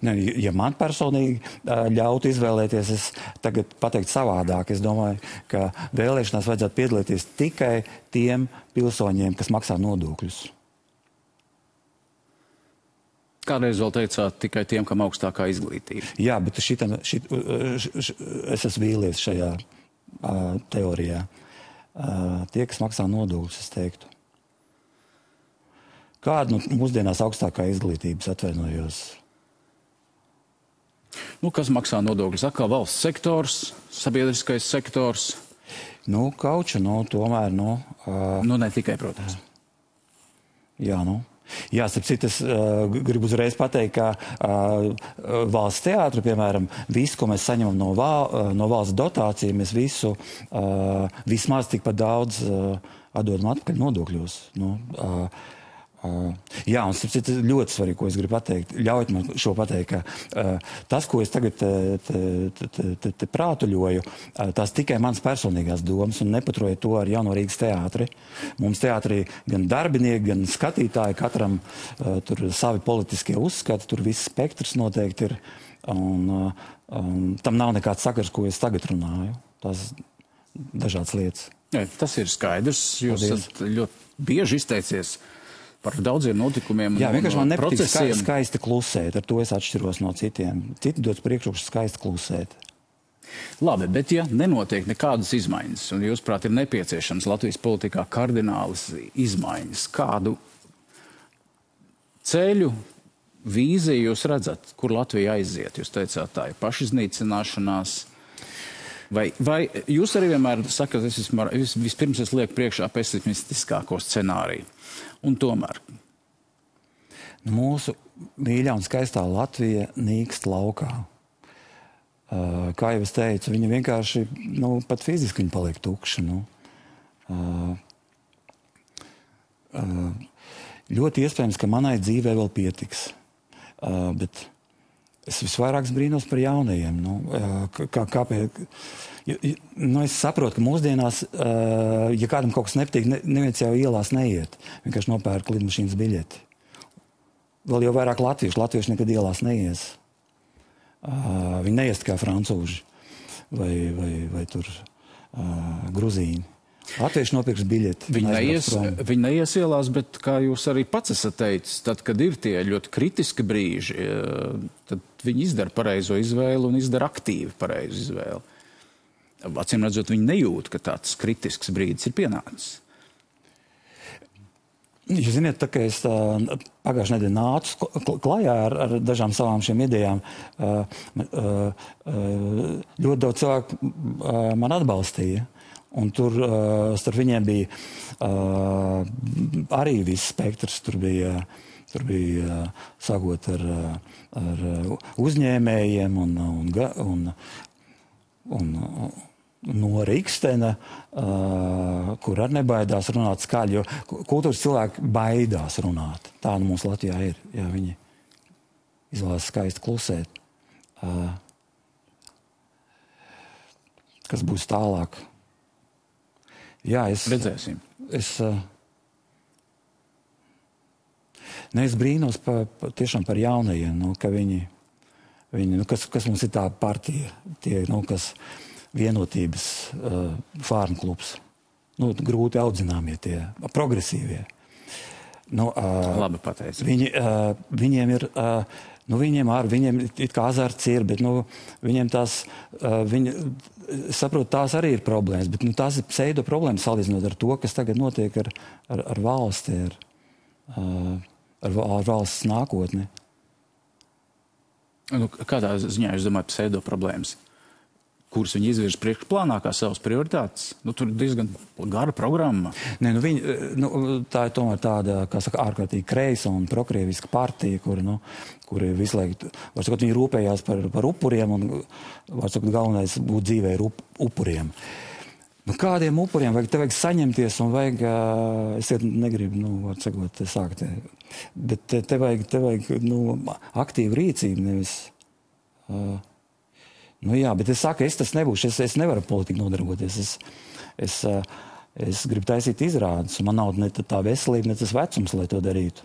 Speaker 2: Ne, ja man personīgi ļautu izvēlēties, es tagad pateiktu savādāk. Es domāju, ka vēlēšanās vajadzētu piedalīties tikai tiem pilsoņiem, kas maksā nodokļus.
Speaker 1: Kādreiz vēl teicāt tikai tiem, kam augstākā izglītība.
Speaker 2: Jā, bet es esmu vīlies šajā teorijā. Tie, kas maksā nodokļus, es teiktu. Kāda mūsdienās augstākā izglītības atvainojos?
Speaker 1: Kas maksā nodokļus? Atkal valsts sektors, sabiedriskais sektors?
Speaker 2: Kauču, tomēr,
Speaker 1: ne tikai, protams.
Speaker 2: Jā, Jā, starp es gribu uzreiz pateikt, ka valsts teātra, piemēram, visu, ko mēs saņemam no valsts dotācija, mēs visu vismaz tikpat daudz atdodam atpakaļ nodokļos. Jā, un starp citu ļoti svarīgi, ko es gribu pateikt. Ļaujiet man šo pateikt, ka tas, ko es tagad te prātuļoju, tās tikai mans personīgās domas un nepaturiet to ar Jauno Rīgas teātri. Mums teātrī gan darbinieki, gan skatītāji, katram tur savi politiskie uzskati, tur viss spektrs noteikti ir. Un tam nav nekāds sakars, ko es tagad runāju. Tas dažādas lietas.
Speaker 1: Jā, tas ir skaidrs. Jūs esat ļoti bieži izteicies par daudziem notikumiem.
Speaker 2: Jā, vienkārši man nepatīk
Speaker 1: procesiem.
Speaker 2: skaisti klusēt. Ar to es atšķiros no citiem. Citi dodas priekšroku skaisti klusēt.
Speaker 1: Labi, bet ja nenotiek nekādas izmaiņas, un jūsuprāt ir nepieciešams Latvijas politikā kardinālas izmaiņas, kādu ceļu, vīziju jūs redzat, kur Latvija aiziet? Jūs teicāt, tā ir pašiznīcināšanās. Vai jūs arī vienmēr sakat, vispirms es lieku priekšā pesimistiskāko scenāriju? Un tomēr?
Speaker 2: Mūsu mīļā un skaistā Latvija nīkst laukā. Kā jau es teicu, viņa vienkārši, pat fiziski viņa paliek tukša. Ļoti iespējams, ka manai dzīvē vēl pietiks. Bet es visvairāk brīnos par jaunajiem. Kāpēc? Es saprotu, ka mūsdienās, ja kādam kaut kas nepatīk, neviens jau ielās neiet. Vienkārši nopērk lidmašīnas biļeti. Vēl jau vairāk latvieši nekad ielās neies. Viņi neies kā francūži vai tur gruzīni. Latvieši nopirks biļeti.
Speaker 1: Viņi neies ielās, bet, kā jūs arī pats esat teicis, tad, kad ir tie ļoti kritiski brīži, tad viņi izdara pareizo izvēli un izdara aktīvi pareizu izvēli. Acīm redzot, viņi nejūt, ka tāds kritisks brīdis ir pienācis.
Speaker 2: Jūs ziniet, tā kā es pagājušajā nedēļā nācu klajā ar dažām savām šiem idejām, ļoti daudz cilvēku man atbalstīja. Un tur starp viņiem bija arī viss spektrs. Tur bija sākot ar uzņēmējiem un no Rikstena, kur arī nebaidās runāt skaļi, jo kultūras cilvēki baidās runāt. Tā mums Latvijā ir. Jā, viņi izvēlas skaisti klusēt. Kas būs tālāk? Jā,
Speaker 1: redzēsim.
Speaker 2: Es brīnos tiešām par jaunajiem, ka viņi kas mums ir tā partija, tie, kas vienotības fārmu klubs. Grūti audzināmie tie, progresīvie.
Speaker 1: Labi pateicis.
Speaker 2: Viņiem ir, viņiem it kā azarts ir, bet viņiem tās, saprotu, tās arī ir problēmas, bet tās ir pseido problēmas salīdzinot ar to, kas tagad notiek ar valsti, ar valsts nākotni.
Speaker 1: Kādā ziņā jūs domājat pseido problēmas? Kuras viņi izvirz priekšplānā kā savas prioritātes? Tur ir diezgan gara programma.
Speaker 2: Tā ir tomēr tāda, kā saka, ārkārtīgi kreisa un prokrieviska partija, kuri visu laiku, var sakot, viņi rūpējās par upuriem un, var sakot, galvenais būt dzīvē ir upuriem. Kādiem upuriem? Te vajag saņemties un vajag, es negribu, var sakot, sākt, bet te vajag aktīvu rīcību, nevis... Jā, bet es saku, es tas nebūšu, es nevaru politiku nodarboties. Es Es gribu taisīt izrādes, un man nav ne tā veselība, ne tas vecums, lai to darītu.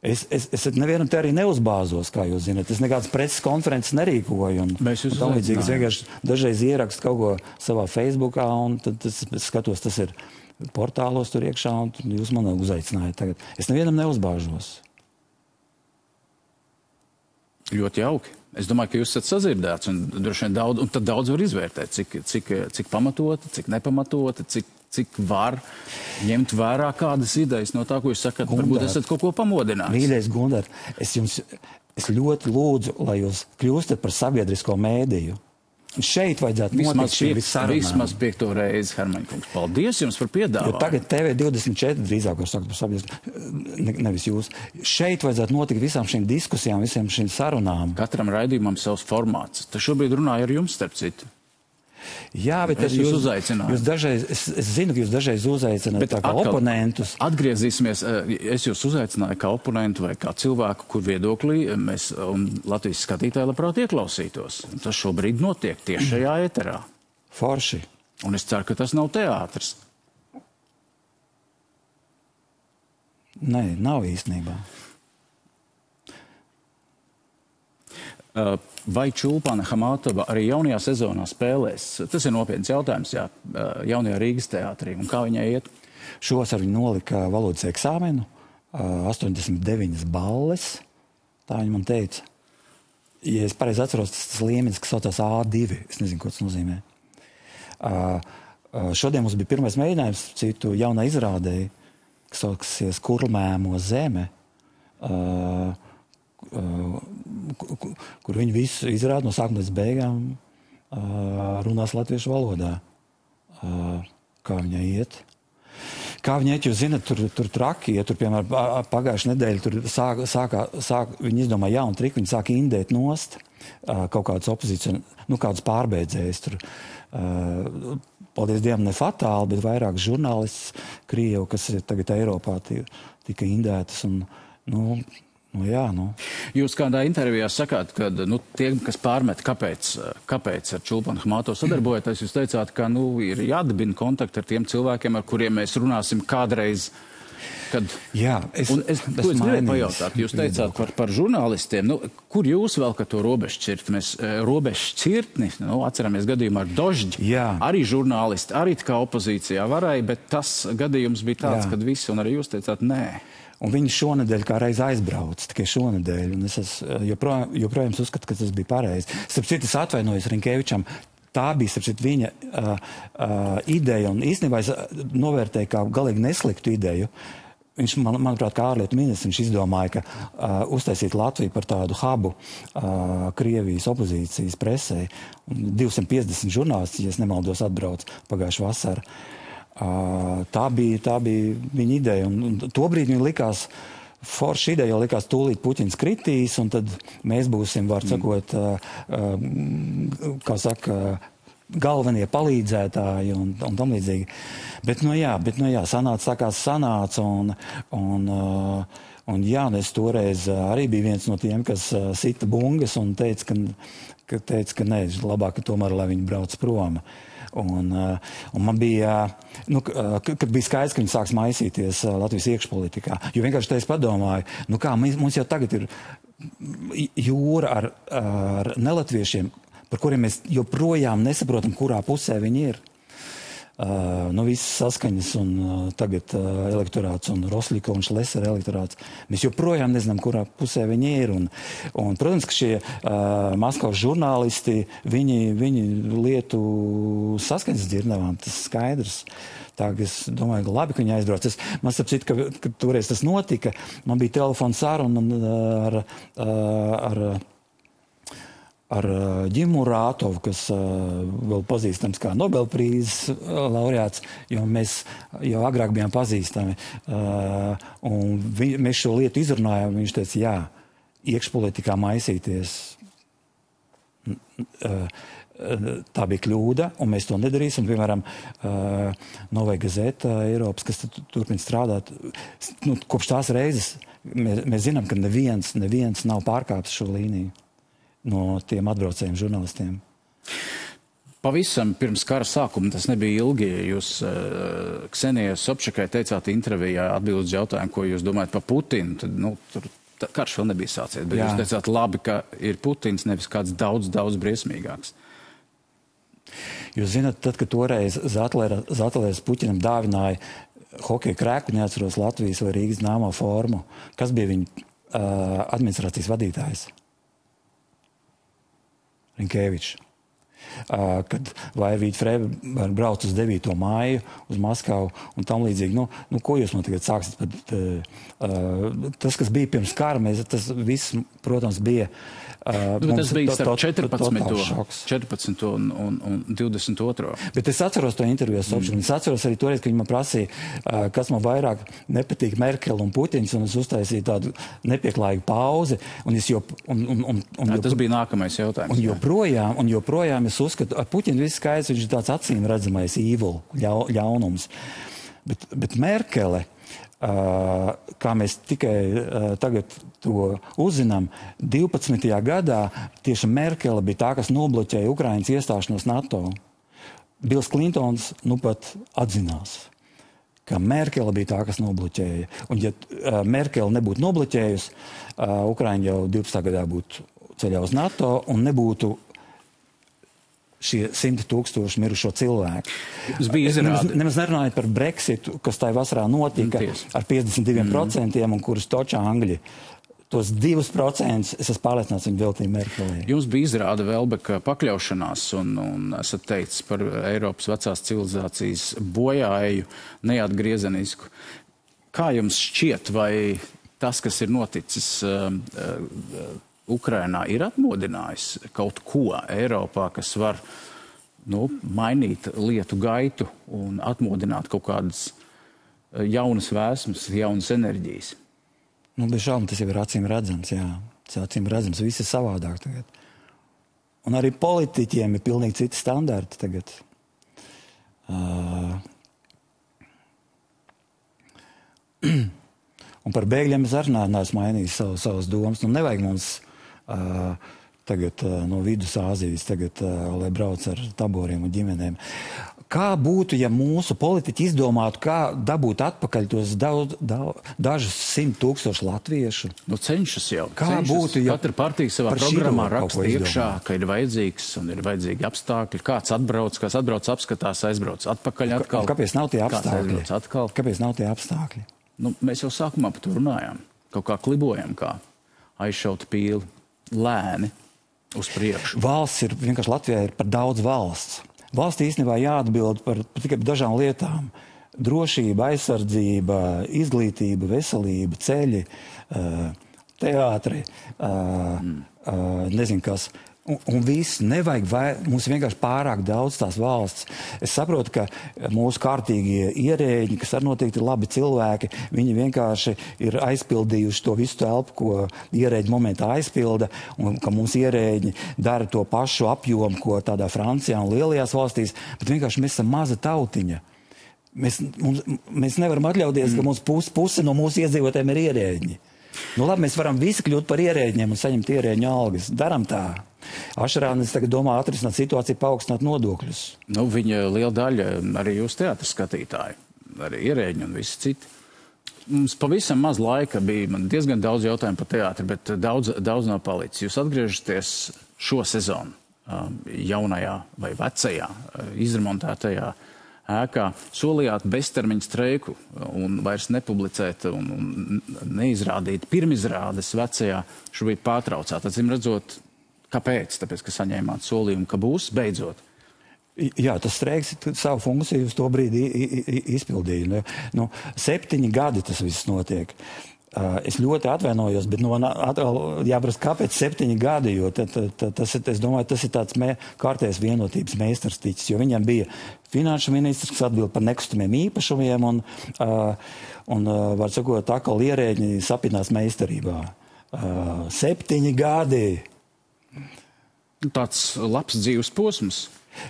Speaker 2: Es nevienam te arī neuzbāzos, kā jūs zināt. Es nekādas preses konferences nerīkoju.
Speaker 1: Mēs jūs
Speaker 2: uzaicinājām. Es vienkārši dažreiz ierakstu kaut ko savā Facebookā, un tad es skatos, tas ir portālos tur iekšā, un jūs man uzaicinājāt tagad. Es nevienam neuzbāžos.
Speaker 1: Ļoti jauki. Es domāju, ka jūs esat sazirdēts, un droši vien un tad daudz var izvērtēt, cik pamatoti, cik nepamatoti, cik var ņemt vērā kādas idejas no tā, ko jūs sakat. Varbūt esat kaut ko pamodinājis.
Speaker 2: Mīļais Gundar, es ļoti lūdzu, lai jūs kļūstat par sabiedrisko mēdīju. Šeit vajadzētu notikt šī visarunām.
Speaker 1: Vismaz 5. reizi, Hermaņkungs. Paldies jums par piedāvājumu.
Speaker 2: Jo tagad TV24 drīzāk var sakt par sabiedrisko, nevis jūs. Šeit vajadzētu notikt visām šīm diskusijām, visām šīm sarunām.
Speaker 1: Katram raidījumam savs formāts. Tas šobrīd runāja ar jums, starp citu.
Speaker 2: Jā, bet
Speaker 1: jūs uzaicināju.
Speaker 2: Jūs dažreiz, es zinu, ka jūs dažreiz uzaicināt tā kā oponentus.
Speaker 1: Atgriezīsimies, es jūs uzaicināju kā oponentu vai kā cilvēku, kur viedoklī mēs un Latvijas skatītāji labprāt ieklausītos. Tas šobrīd notiek tieši šajā ēterā.
Speaker 2: Forši.
Speaker 1: Un es ceru, ka tas nav teātris.
Speaker 2: Nē, nav īstenībā.
Speaker 1: Vai Čulpana Hamatova arī jaunajā sezonā spēlēs? Tas ir nopietns jautājums, jā, jaunajā Rīgas teātrī. Un kā viņai iet?
Speaker 2: Šovasar viņa nolika valodas eksāmenu, 89 balles, tā viņa man teica. Ja es pareizi atceros, tas līmenis, kas saucās A2, es nezinu, ko tas nozīmē. Šodien mums bija pirmais mēģinājums citu jaunā izrādēji, kas sauksies Kurlmēmo zeme, kur viņi visu izrāda no sākuma līdz beigām runās latviešu valodā. Kā viņai iet? Kā viņai iet, jūs zināt, tur traki, ja tur, piemēram, pagājušajā nedēļā tur viņi izdomāja jaunu triku, viņi sāk indēt nost kaut kādas opozīcijas, kādus pārbeidzējus tur. Paldies Dievam, ne fatāli, bet vairāk žurnālists Krievu, kas ir tagad Eiropā, tika indētas un, jā.
Speaker 1: Jūs kādā intervijā sakāt, ka tie, kas pārmet, kāpēc ar Čulpanu Hamatovu sadarbojaties, jūs teicāt, ka ir jādibina kontakti ar tiem cilvēkiem, ar kuriem mēs runāsim kādreiz.
Speaker 2: Jā,
Speaker 1: es gribēju pajautāt, jūs teicāt par žurnālistiem, kur jūs vēl to robežšķirtni, atceramies gadījumu ar Dožģi, arī žurnālisti, arī kā opozīcijā varēja, bet tas gadījums bija tāds, kad visi, un arī jūs teicāt, nē.
Speaker 2: Un viņi šonedēļ kā reiz aizbrauca, tikai šonedēļ, un es joprojām uzskatu, ka tas bija pareizi. Starp citu, es atvainojos Rinkevičam, tā bija, starp citu, viņa ideja, un īstenībā es novērtēju kā galīgi nesliktu ideju. Viņš, manuprāt, kā ārlietu ministrs, viņš izdomāja, ka uztaisīt Latviju par tādu hubu Krievijas opozīcijas presē. 250 žurnālisti, ja es nemaldos, atbrauc pagājušā vasara. Tā bija viņa ideja, un tobrīd viņa likās, forša ideja, jo likās tūlīt Puķins kritīs, un tad mēs būsim, var sakot, kā saka, galvenie palīdzētāji un tam līdzīgi. Bet, sanāca, un es toreiz arī biju viens no tiem, kas sita bungas un teica, ka nē, labāk tomēr, lai viņi brauc prom. Un man bija, kad bija skaidrs, ka viņi sāks maisīties Latvijas iekšpolitikā, jo vienkārši te es padomāju, mums jau tagad ir jūra ar nelatviešiem, par kuriem mēs joprojām nesaprotam, kurā pusē viņi ir. Visas saskaņas un tagad elektorāts un Rosļika un Šlesera elektorāts. Mēs joprojām nezinām, kurā pusē viņi ir. Un protams, ka šie Maskavas žurnālisti, viņi lietu saskaņas dzirnavām, tas skaidrs. Tā, es domāju, ka labi, ka viņi aizbrauc. Man starp citu, ka toreiz tas notika, man bija telefona saruna ar Ģimu Rātovu, kas vēl pazīstams kā Nobelprīzes laureāts, jo mēs jau agrāk bijām pazīstami. Un mēs šo lietu izrunājām, viņš teica, jā, iekšpolitikā maisīties. Tā bija kļūda, un mēs to nedarīsim. Piemēram, Novai Gazeta Eiropas, kas turpina strādāt, kopš tās reizes mēs zinām, ka neviens nav pārkāpis šo līniju no tiem atbraucējiem žurnālistiem.
Speaker 1: pavisam pirms kara sākuma, tas nebija ilgi, jūs Ksenijai Sobčakai teicāt intervijā atbildot uz jautājumu, ko jūs domājat par Putinu, tad, tur karš vēl nebija sācies, bet jūs teicāt labi, ka ir Putins, nevis kāds daudz briesmīgāks.
Speaker 2: Jūs zināt, tad, kad toreiz Zatlers Puķinam dāvināja hokeja krēku, neatceros Latvijas vai Rīgas nāmo formu, kas bija viņa administrācijas vadītājs? Rinkēvičs. Kad Vairvīta Frēba brauc uz 9. māju, uz Maskavu un tam līdzīgi. Ko jūs man tagad sāksiet? Tas, kas bija pirms kara, tas viss, protams, bija...
Speaker 1: tas bija starp 14. un 22.
Speaker 2: Bet es atceros to interviju ar Sobčaku. Es atceros arī toreiz, ka viņi man prasīja, kas man vairāk nepatīk Merkele un Putins, un es uztaisīju tādu nepieklājīgu pauzi.
Speaker 1: Tas bija nākamais jautājums.
Speaker 2: Un joprojām es uzskatu, ar Puķinu viss skaidrs, viņš ir tāds acīm redzamais evil, ļaunums. Bet Merkele, kā mēs tikai tagad to uzzinām, 12. gadā tieši Merkele bija tā, kas nobloķēja Ukrainas iestāšanos NATO. Bils Klintons pat atzinās, ka Merkele bija tā, kas nobloķēja. Un ja Merkele nebūtu nobloķējusi, Ukraina jau 12. gadā būtu ceļā uz NATO un nebūtu šie 100 000 mirušo cilvēku. Nemaz nerunājot par Brexitu, kas tajā vasarā notika ar 52%, un kurus točā Angļi. Tos 2% es esmu pārliecināts, viņi veltīja Merkelē.
Speaker 1: Jums bija izrāda Velbeka pakļaušanās un esat teicis par Eiropas vecās civilizācijas bojāēju neatgriezenisku. Kā jums šķiet, vai tas, kas ir noticis Ukrainā, ir atmodinājis kaut ko Eiropā, kas var mainīt lietu gaitu un atmodināt kaut kādas jaunas vēsmas, jaunas enerģijas?
Speaker 2: Bez šaubām tas jau ir acīm redzams, jā. Tas acīm redzams, viss ir savādāk tagad. Un arī politiķiem ir pilnīgi citi standarti tagad. Un par bēgļiem es arī neesmu mainījis savas domas. Nevajag mums tagad no Vidusāzijas, lai brauc ar taboriem un ģimenēm. Kā būtu, ja mūsu politiķi izdomātu, kā dabūt atpakaļ tos dažus 100 000 latviešu?
Speaker 1: Cenšas jau.
Speaker 2: Kā būtu, ja
Speaker 1: katra partija savā programmā raksta iekšā, ka ir vajadzīgs un ir vajadzīgi apstākļi. Kāds atbrauc, apskatās, aizbrauc atpakaļ atkal.
Speaker 2: Kāpēc nav tie apstākļi? Kāpēc nav tie apstākļi?
Speaker 1: Mēs jau sākumā par to runājām. Kaut kā klibojam, kā aizšauta pīli. Lēni uz priekšu.
Speaker 2: Valsts ir, vienkārši Latvijā ir par daudz valsts. Valsts īstenībā jāatbild par tikai dažām lietām. Drošība, aizsardzība, izglītība, veselība, ceļi, teātri, nezinu kas. Un viss nevajag, mums vienkārši pārāk daudz tās valsts. Es saprotu, ka mūsu kārtīgie ierēģi, kas arī noteikti ir labi cilvēki, viņi vienkārši ir aizpildījuši to visu telpu, ko ierēģi momentā aizpilda, un ka mums ierēģi dara to pašu apjomu, ko tādā Francijā un lielajās valstīs, bet vienkārši mēs esam maza tautiņa. Mēs nevaram atļauties, ka mums puse no mūsu iedzīvotājiem ir ierēģi. Labi, mēs varam visi kļūt par ierēģiem un saņemt ierēģu algas. Daram tā. Ašarānis tagad domā atrisināt situāciju, paaugstināt nodokļus.
Speaker 1: Viņa liela daļa, arī jūs teātris skatītāji, arī ierēģi un visi citi. Mums pavisam maz laika bija, man diezgan daudz jautājumu par teātri, bet daudz nav palicis. Jūs atgriežaties šo sezonu jaunajā vai vecajā, izremontētajā ēkā, solījāt beztermiņu streiku un vairs nepublicēt un neizrādīt pirmizrādes vecajā, šobrīd pārtraucāt. Atcīm redzot, kāpēc? Tāpēc, ka saņēmāt solījumu, ka būs beidzot.
Speaker 2: Jā, tas streiks savu funkciju uz to brīdi izpildīja. 7 gadi tas viss notiek. Es ļoti atvainojos, bet jāprast, kāpēc 7 gadi, jo es domāju, tas ir tāds kārtējs vienotības meistars ticis, jo viņam bija finanšu ministrs, kas atbild par nekustamiem īpašumiem un var sakot, atkal ierēģi sapinās meistarībā. 7 gadi!
Speaker 1: Tāds labs dzīves posms.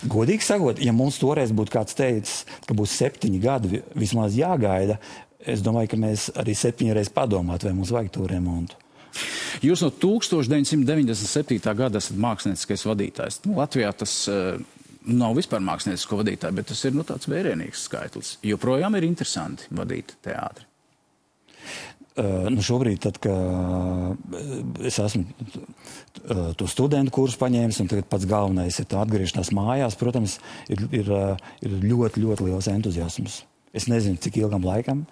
Speaker 2: Godīgi sakot, ja mums toreiz būtu kāds teicis, ka būs 7 gadi vismaz jāgaida, es domāju, ka mēs arī 7 reizes padomātu, vai mums vajag to remontu.
Speaker 1: Jūs no 1997. gada esat mākslinieckais vadītājs. Latvijā tas nav vispār māksliniecisko vadītāju, bet tas ir tāds vērienīgs skaitlis. Joprojām ir interesanti vadīt teātri.
Speaker 2: Šobrīd, tad, kad es esmu to studentu kursu paņēmis, un tagad pats galvenais ir atgriešanās mājās, protams, ir ļoti, ļoti liels entuziasms. Es nezinu, cik ilgam laikam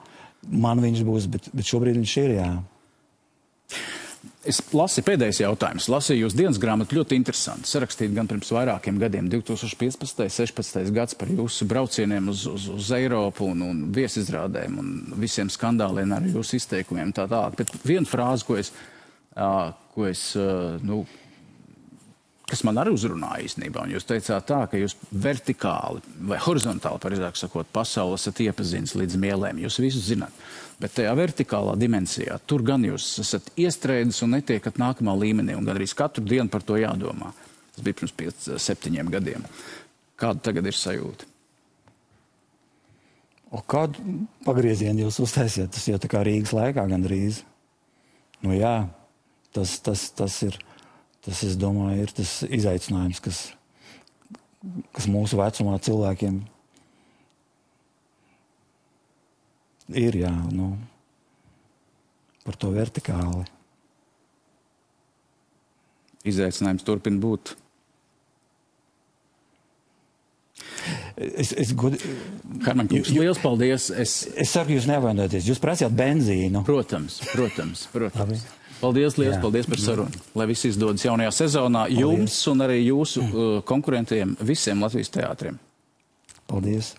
Speaker 2: man viņš būs, bet šobrīd viņš ir, jā.
Speaker 1: Es lasīju pēdējais jautājums. Lasīju jūs dienas grāmatu ļoti interesanti. Sarakstīt gan pirms vairākiem gadiem, 2015. 16. gads par jūsu braucieniem uz Eiropu un viesizrādēm un visiem skandāliem ar jūsu izteikumiem tā tālāk. Bet viena frāze, kas man arī uzrunāja īstenībā, un jūs teicāt tā, ka jūs vertikāli vai horizontāli, pareizāk sakot, pasauli esat iepazinis līdz mielēm. Jūs visu zināt. Bet tajā vertikālā dimensijā, tur gan jūs esat iestrēdis un netiekat nākamā līmenī, un gan arī katru dienu par to jādomā. Tas bija pirms 5-7 gadiem. Kāda tagad ir sajūta?
Speaker 2: Kādu pagriezienu jūs uztaisiet? Tas jau tā kā Rīgas laikā gandrīz. Jā, tas ir, es domāju, ir tas izaicinājums, kas mūsu vecumā cilvēkiem ir, jā, par to vertikāli.
Speaker 1: Izaicinājums turpina būt. Herman, liels paldies. Es
Speaker 2: saku, jūs nevainojaties. Jūs prasījāt benzīnu.
Speaker 1: Protams. Paldies, liels paldies par sarunu. Lai viss izdodas jaunajā sezonā jums un arī jūsu konkurentiem visiem Latvijas teātriem.
Speaker 2: Paldies.